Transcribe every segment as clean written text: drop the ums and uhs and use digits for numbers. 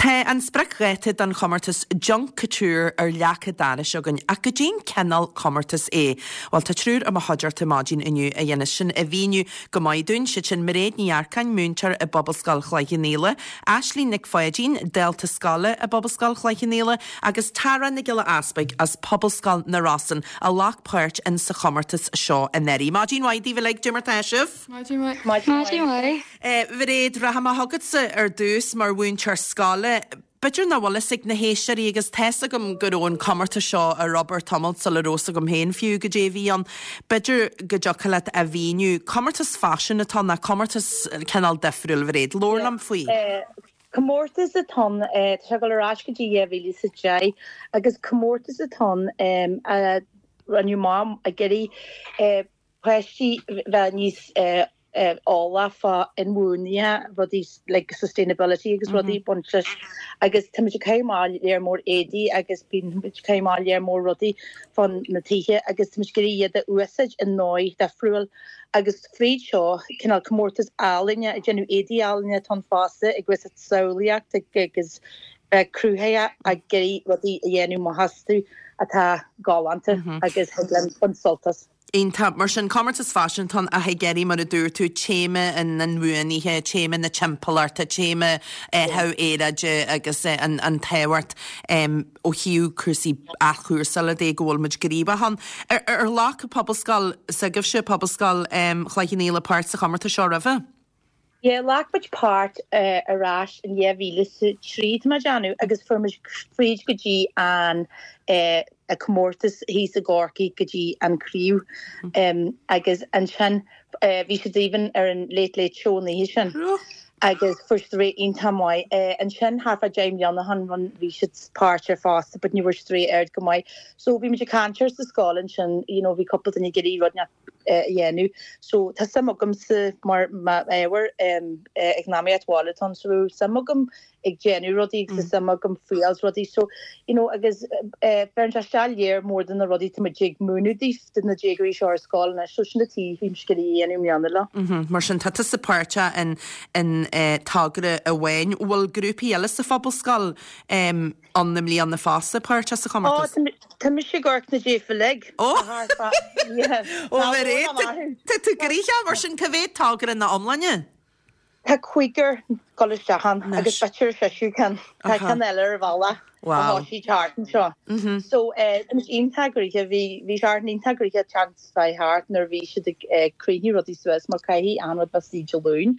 Tá an spriocdháta don chomórtas Junk Kouture ar leac an dorais againn, ach goidé'n cineál comórtas é? Bhuel, tá triúr i mo chuideachta maidin inniu a dhéanas sin a mhíniú go maith dúinn, siad sin Mairéad Ní Earcáin, múinteoir i bPobalscoil Chloich Cheann Fhaola, Aislínn Nic Pháidín, dalta scoile i bPobalscoil Chloich Cheann Fhaola, agus Tara Nic Giolla Easpaig as Pobalscoil na Rosann a ghlac páirt in sa chomórtas seo anuraidh. Maidin mhaith daoibh uilig, goidé mar tá sibh? Maidin mhaith. Maidin mhaith. Mhairéad, rachaidh mé chugatsa ar dtús mar mhúinteoir scoile. B'fhéidir nach bhfuil fhios ag na héisteoirí agus tá's agam go raibh an comórtas seo ar obair tamalt sula raibh fhios agam féin fiú goidé a bhí ann. B'fhéidir go dtiocfadh leat a mhíniú. Comórtas faisin atá ann, ná comórtas cineál difriúil, Mhairéad. Labhair liom faoi. Comórtas atá ann, tá sé ag dul ar ais go dtí 2010 agus comórtas atá ann a rinneadh amach ag iarraidh páistí bheith níos eolach fá inbhuanaithe, rudaí like sustainability agus rudaí ag baint leis agus tá muid ag caitheamh amach léar mór éadaí agus bíonn muid ag caitheamh amach léar mór rudaí fán na tithe agus tá muid ag iarraidh iad a úsáid i ndóigh difriúil agus fríd seo cineál comórtas ealaíne ag déanamh éadaí ealaíne atá ann fosta ag úsáid samhlaíocht agus bheith cruthaitheach ag iarraidh rudaí a dhéanamh amach astu atá galánta agus thig linn baint sult as. Iontach. Mar sin, comórtas faisin atá ann ach ag iarraidh, mar a dúirt tú, téama an inbhuanaithe, téama na timpeallachta, téama athrú aeráide agus an tábhacht ó thaobh cúrsaí athchúrsála de go bhfuil muid gníomhach ann. Ar ghlac Pobalscoil s'agaibhse, Pobalscoil Chloich Cheann Fhaola, páirt sa chomórtas seo roimhe? Yeah, ghlac muid páirt ar ais in 2003, tá mé ag déanamh, agus fuair muid fríd go dtí an comórtas thíos i gCorcaigh go dtí an craobh. Agus ansin bhí siad even ar an Late Late Show an oíche sin agus fuair siad rate iontach maith. Ansin thart fá 10 mbliana ó shin bhí siad páirteach fosta but ní bhfuair siad rate oiread go maith. So bhí muid ag caint air sa scoil ansin, you know, bhí cúpla duine ag iarraidh rud a dhéanamh. So tá suim agamsa mar m'ábhar eacnamaíocht bhaile atá ann so bhí suim agam ag déanamh rudaí agus tá suim agam fuáil rudaí so you know agus bheireann sé isteach léar mór de na rudaí tá muid ag múineadh daofa do na déagóirí seo ar scoil anois so sin an tuige bhí mise ag iarraidh a dhéanamh i mbliana leo. Mar sin tá tusa páirteach in in togra amháin. Bhfuil grúpaí eile sa phobalscoil ann i mbliana fosta páirteach sa chomórtas? Ó, tá mise ag amharc na daofa uilig. Ó! Ó, Mhairéad, tá tú gnoitheach, mar sin, cá mhéad togra ina iomláine? Tá cúigear ag dul isteach ann agus b'fhéidir seisear ceann. Tá ceann eile ar an bhealach a thosaigh thart anseo. So, tá muid iontach gnoitheach, bhí bhí Seachtain iontach gnoitheach chance bheith thart nuair a bhí siad ag críochnú rudaí suas mar caithfidh achan rud bheith istigh Dé Luain,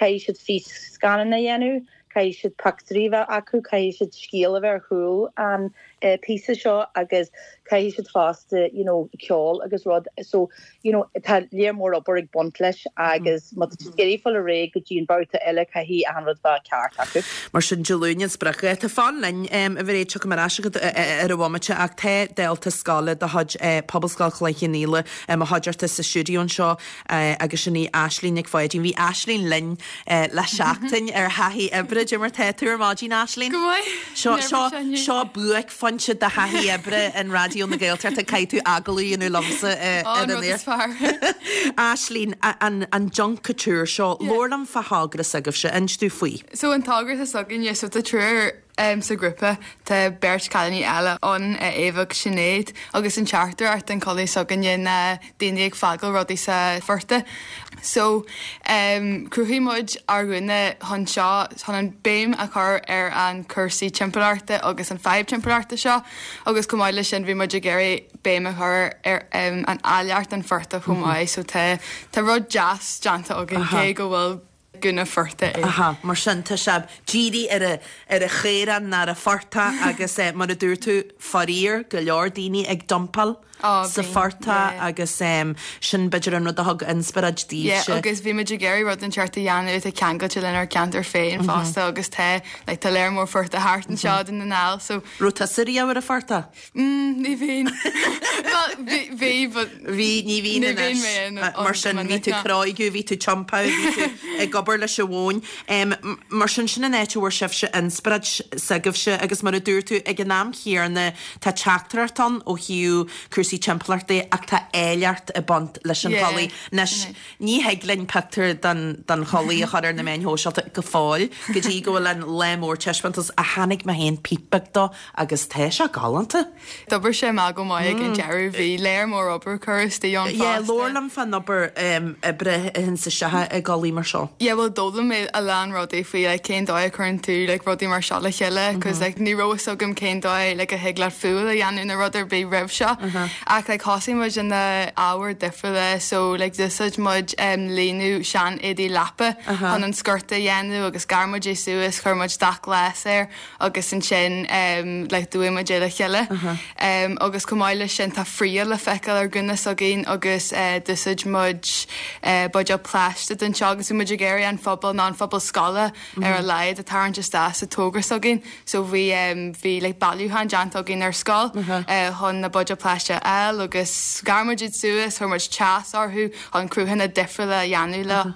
caithfidh siad fís-scannán a dhéanamh, Caithfidh siad pictiúirí a bheith acu, caithfidh siad scéal a bheith ar chúl an píosa seo agus caithfidh siad fosta you know ceol agus rud so you know tá léar mór obair ag baint leis agus má tá siad ag iarraidh fáil ar aghaidh go dtí an babhta eile caithfidh achan rud bheith ceart acu. Mar sin Dé Luain an spriocdháta. Fan linn, a Mhairéad, tiocfaidh mé ar ais chugat ar an bhomaite ach tá dalta scoile de chuid Pobalscoil Chloich Cheann Fhaola i mo chuideachta sa stiúideo anseo agus sin í Aislínn Nic Pháidín. Bhí Aislínn linn le seachtain ar thaithí oibre. Cad é mar tá tú ar maidin, Aislínn? Go maith. Seo, seo, seo buaicphointe de thaithí oibre in Raidió na Gaeltachta. Caithfidh tú agallamh a dhéanamh liomsa ar an aer. Aislínn, an, an Junk Kouture seo, labhair liom fá thogra s'agaibhse, inis domh faoi. So an togra atá s'againne, so tá triúr Sa ghrúpa tá beirt cailíní eile ann, Éabha agus Sinéad, agus an teachtaireacht don chulaith s'againne ná daoine ag fágáil rudaí sa phortach. So, chruthaigh muid ár ngúna chun seo, chun an béim a chur ar an cúrsaí timpeallachta agus an fadhb timpeallachta seo agus chomh maith leis sin bhí muid ag iarraidh béim a chur ar an áilleacht an phortach chomh maith. So tá tá rud deas déanta againn cé go bhfuil gúna phortaigh é. Aha, mar sin tá sé dírithe ar a, ar an chaorán ná ar an phortach agus eh, mar a dúirt tú, faraor, go leor daoine ag dumpáil Á, sa bíonn, phortach yeah. agus em, sin b'fhéidir an rud a thug inspioráid Yeah, daoibhse. agus bhí muid ag iarraidh rud inteacht a dhéanamh atá ceangailte lenár gceantar féin fosta agus tá, like, tá léar mór phortach thart anseo i Dún na nGall, so Raibh tusa riamh ar an phortach? Mm, ní bhíonn. Bhuel, bhí, bhí, but Bhí, ní bhíonn ní bhíonn anois. mé in Mar sin, bhí tú cróigiú, bhí tú tiompáil, bhí tú ag obair. Abair leis an mhóin. Mar sin, sin an áit a bhfuair sibhse inspioráid s'agaibhse agus mar a dúirt tú, ag an am chéanna tá teachtaireacht ann ó thaobh cúrsaí timpeallachta ach tá áilleacht ag baint leis an chulaith. Anois, ní thig linn pictiúr den den chulaith a chur ar na meáin shóisialta go fóill go dtí go bhfuil an lá mór taispeántais ach chonaic mé féin píp beag dó agus tá sé galánta. D'oibir sé amach go maith ag an deireadh. Bhí léar mór obair curtha istigh ann Yeah, fosta. labhair liom fán obair oibre a théann isteach i gculaith mar seo. Yeah, bhuel d'fhoghlaim mé a lán rudaí faoi like cén dóigh a chuireann tú like rudaí mar seo le chéile cos like ní raibh fhios agam cén dóigh like a thig leat fuáil a dhéanamh nó rud ar bith roimh seo. Ach like thosaigh muid in na ábhair difriúla so like d'úsáid muid um líonadh sean éadaí leapa chun an sciorta a dhéanamh agus ghearr muid é suas, chuir muid dath glas air agus ansin like d'fhuaigh muid é le chéile. Agus chomh maith leis sin tá fraoch le feiceáil ar ghúna s'againn agus d'úsáid muid buidéal plaisteach don seo agus bhí muid ag iarraidh an phobal nó an phobal scoile ar a laghad a tarraingt isteach sa togra s'againn. So bhí bhí like bailiúchán déanta againn ar scoil chun na buidéil plaisteach a fháil agus ghearr muid iad suas, chuir muid teas orthu chun cruthanna difriúla a dhéanamh leo.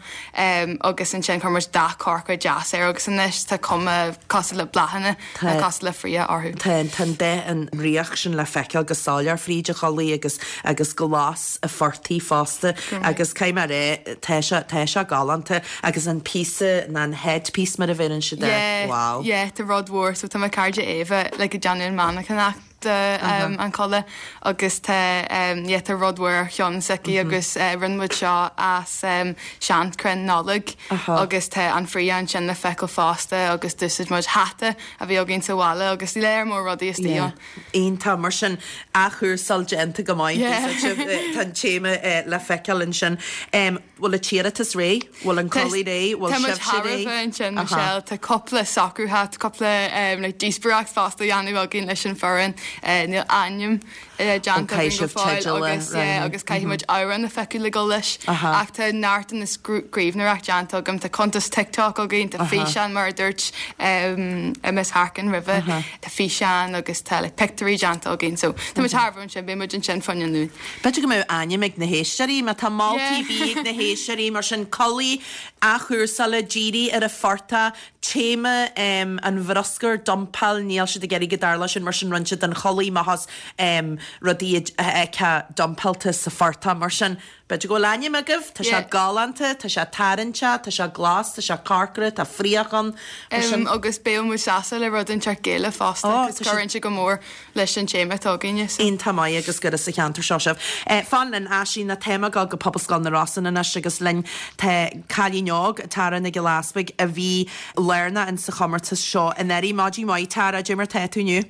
Agus ansin chuir muid dath corcra deas air agus anois tá cuma cosúil le bláthanna nó cosúil le fraoch orthu. Tá tá an dath an fhraoch sin le feiceáil go soiléir fríd an chulaith agus agus glas an phortaigh fosta agus caithfidh mé a rá tá sé tá sé galánta agus an píosa ná an headpiece mar a bheireann siad air. Yeah, Wow. yeah, tá rud mhór so tá mo cairde Éabha like ag déanamh an mhainneachtanacht de an chulaith agus tá yeah tá rud mhór ar cheann s'aici agus rinne muid seo as seanchrann Nollag agus tá an fraoch ansin le feiceáil fosta agus d'úsáid muid hata a bhí againn sa bhaile agus léar mór rudaí istigh ann. Iontach, mar sin athchúrsáil déanta go maith, tá an téama le feiceáil ansin. Bhfuil an t-iarratas réidh? Bhfuil an culaith réidh? Bhfuil Tá muid sibhse thar a réidh? bheith ansin, Michelle. Tá cúpla socrúithe, tá cúpla like díospóireacht fosta á dhéanamh againn leis an foireann. Níl ainm déanta Caithfidh againn go sibh fóill teideal a agus yeah roghnú. agus caithfidh muid amhrán a phiocadh le dul leis. Ach tá neart de na scríbhneoireacht déanta agam. Tá cuntas TikTok againn, tá físeán mar a dúirt Miss Harkin roimhe, tá físeán agus tá like pictiúirí déanta againn. So tá muid thar a bheith ansin, beidh muid ansin fá choinne an Luain. B'fhéidir go mbeadh ainm ag na héisteoirí, má tá moltaí ar bith ag na héisteoirí, mar sin, culaith athchúrsála, dírithe ar an phortach, téama an bhruscair, dumpáil, níl siad ag iarraidh go dtarlódh sin, mar sin rinne siad an chulaith amach as rudaí a fheicfeá dumpáilte sa phortach, mar sin, b'fhéidir go bhfuil ainm agaibh, tá sé galánta, tá sé tarraingteach, tá sé glas, tá sé corcra, tá fraoch ann, mar sin. Agus beidh muid sásta le rud inteacht Gaelach fosta, cos cuireann sé go mór leis an téama atá againne. So. Iontach maith agus gur as an cheantar seo sibh. Fan linn, Aisling, tá muid ag dul go Pobalscoil na Rosann anois agus linn tá cailín óg, Tara Nic Giolla Easpaig, a bhí lárnach in sa chomórtas seo anuraidh. Maidin mhaith Tara, cad é mar tá tú inniu?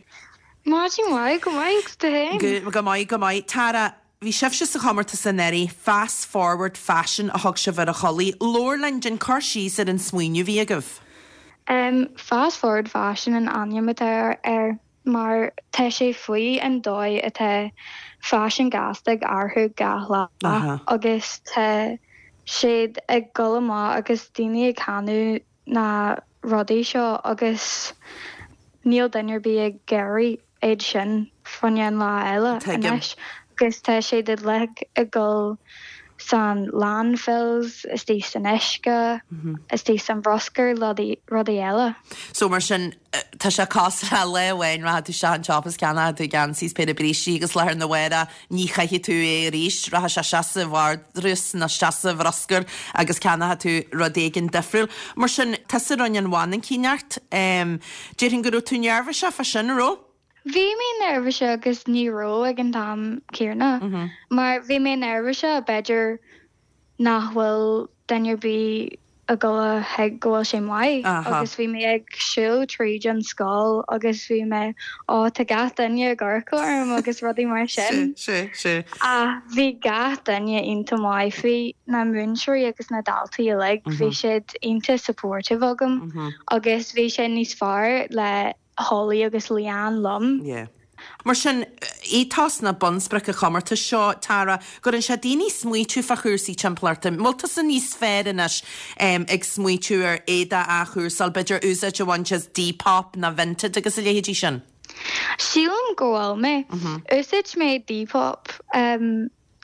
Maidin mhaith, go maith agus tú féin? Go maith, go maith. Tara, bhí sibhse sa chomórtas anuraidh, Fast Forward Fashion a thug sibh ar an chulaith. Labhair linn, déan cur síos ar an smaoineamh a bhí agaibh. Fast Forward Fashion an ainm atá air. mar tá sé faoi an dóigh atá faisean gasta ag athrú gach lá agus tá siad ag dul amach agus daoine ag ceannú na rudaí seo agus níl duine ar bith ag iarraidh iad sin fá choinne an lá eile anois agus tá siad uilig ag dul san landfills, istigh san uisce, istigh san bhruscar, rudaí eile. So mar sin, tá sé cosúil le lá amháin rachaidh tú isteach an tsiopa is ceannóidh tú geansaí is péire brístí agus lá arna mhárach ní chaithfidh tú é arís, rachaidh sé isteach sa vardrús nó isteach sa bhruscar agus ceannóidh tú rud éigin difriúil. Mar sin, tusa a rinne an mhainicíneacht. Déarfainn go raibh tú neirbhíseach fá sin, an raibh? Bhí mé neirbhíseach agus ní raibh ag an t-am céanna mar bhí mé neirbhíseach b'fhéidir nach bhfuil duine ar bith ag dul a thuig go bhfuil sé maith agus bhí mé ag siúl tríd an scoil agus bhí mé ó tá gach duine ag amharc orm agus rudaí mar sin. Ach bhí gach duine iontach maith faoi, na múinteoirí agus na daltaí uilig, bhí siad iontach supportive agam agus bhí sé níos fearr le Holly agus Leanne liom. Yeah. Mar sin, ethos nó bunsprioc an chomórtais seo, Tara, go gcuireann sé daoine smaoitiú fá chúrsaí timpeallachta. An bhfuil tusa níos fearr anois ag smaoitiú ar éadach a athchúrsáil, b'fhéidir úsáid a bhaint as Depop nó Vinted agus a leithéidí sin? Sílim go bhfuil mé. Úsáid mé Depop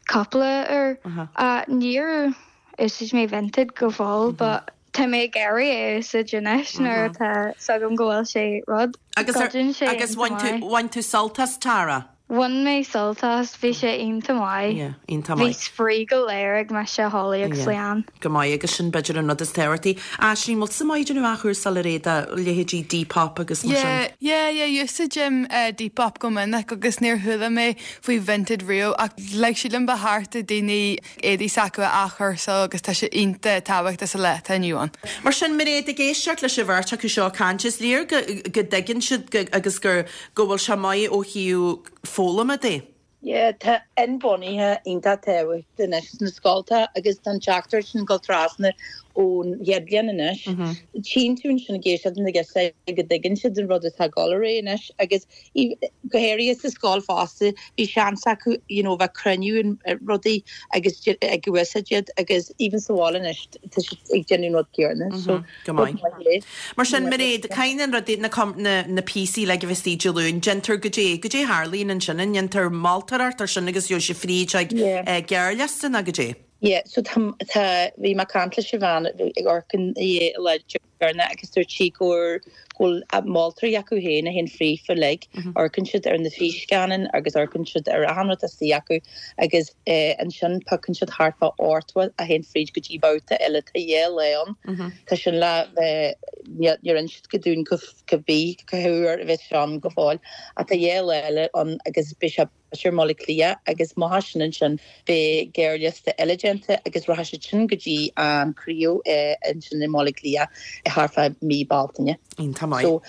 cúpla uair. Níor úsáid mé Vinted go fóill but. Tá mé ag iarraidh é a úsáid anois nuair atá 's agam go bhfuil sé rud. Agus Goideann sé agus iontach bhain tú maith. bhain tú sult as Tara? Bhain mé sult as, bhí sé iontach maith. Yeah, iontach Bhí maith. spraoi go léir ag mise, Holly agus Yeah. Leanne. Go maith agus sin b'fhéidir an rud is tábhachtaí. Aisling, bhfuil tusa maith ag déanamh athchúrsáil ar éadaí, leithéidí Depop agus mar sin? Yeah, yeah, yeah, úsáidim Depop go minic agus níor chuala mé faoi Vinted riamh ach like sílim ba cheart do daoine éadaí s'acu a athchúrsáil agus tá sé iontach tábhachtach sa lá atá inniu ann. Mar sin, Mairéad, ag éisteacht leis an bheirt acu seo ag caint, is léir go go dtuigeann siad go agus gur go bhfuil sé maith ó thaobh foghlama de. Yeah, tá inbhuanaithe iontach tábhachtach anois sna scoltacha agus tá an teachtaireacht sin ag dul trasna ón chéad bhliain anois. Tchíonn tú ansin ag éisteacht na girseacha go dtuigeann siad an rud atá ag dul ar aghaidh anois agus Go háirithe sa scoil fosta, bhí seans acu you know bheith cruinniú rudaí agus ag úsáid iad agus even sa bhaile anois tá siad ag déanamh an rud céanna so Go maith. Mar sin, Mairéad, caithfidh na rudaí, na na píosaí uilig a bheith istigh Dé Luain, déantar goidé, goidé a tharlaíonn ansin, an ndéantar moltóireacht ar sin agus gheobhaidh sibh fríd ag gearrliosta nó goidé? Yeah, so tá, tá, bhí mé ag caint leis an bhean ag amharc an lá deireanach agus dúirt sí go bhfuil moltóirí acu féin a théann fríofa uilig, amharcann siad ar na físcáin agus amharcann siad ar achan rud istigh acu agus ansin piocann siad thart fá 80 a théann fríd go dtí babhta eile, tá dhá lá ann, tá sin le bheith, níor inis siad go dúinn cá bith cá huair a bheas sé ann go fóill ach tá dhá lá eile ann agus beidh sé i mBaile Átha Cliath agus amach as sin ansin beidh gearrliosta eile déanta agus rachaidh siad sin go dtí an craobh ansin i mBaile Átha Cliath thart fá mí Bealtaine. Iontach maith. So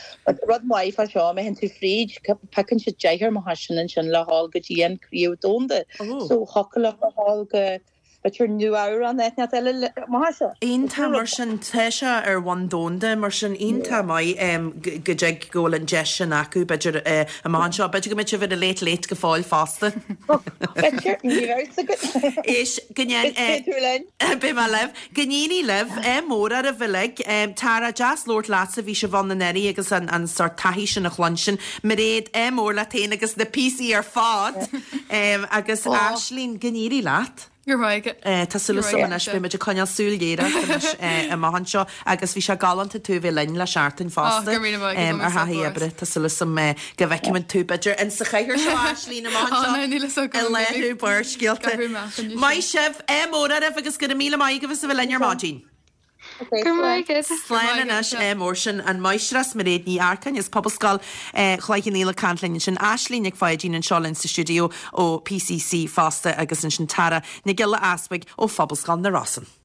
rud maith fá seo, má théann tú fríd, piocann siad deichniúr amach as sin ansin le dhul go dtí an craobh domhanda. So thiocfadh leo a dhul go b'fhéidir Nua-Eabhrac nó áit eile amach as seo. Iontach mar sin, tá sé ar bhonn domhanda mar sin, iontach maith go dtig go bhfuil an deis sin acu b'fhéidir amach anseo. B'fhéidir go mbeidh sibh ar an Late Late go fóill fosta. B'fhéidir, ní bheidh fhios agat. Éist, go ndéan. Beidh tú linn. Beidh mé libh. Go n-éirí libh, ádh mór oraibh uilig. Tara, deas labhairt leatsa, bhí sibh ann anuraidh agus an sórt taithí sin a chluinstin. Mairéad, ádh mór leat féin agus na píosaí ar fad. Agus Aisling, go n-éirí leat. Go raibh maith agat. Tá súil agam anois, beidh muid ag coinneáil súil ghéar ort anois amach anseo agus bhí sé galánta tú a bheith linn le seachtain fosta ar thaithí oibre. Tá súil agam go bhfeicfimid tú b'fhéidir in sa chathaoir seo Aisling amach anseo i léiriú Barrscéalta. Maith sibh, ádh mór oraibh agus go raibh míle maith agaibh as a bheith linn ar maidin. Go raibh maith agat. Slán anois, ádh mór sin an Máistreás Mairéad Ní Earcáin as Pobalscoil Chloich Cheann Fhaola ag caint linn ansin, Aisling Nic Pháidín anseo linn sa stiúideo ó PCC fosta agus ansin Tara Nic Giolla Easbuig ó Phobalscoil na Rosann.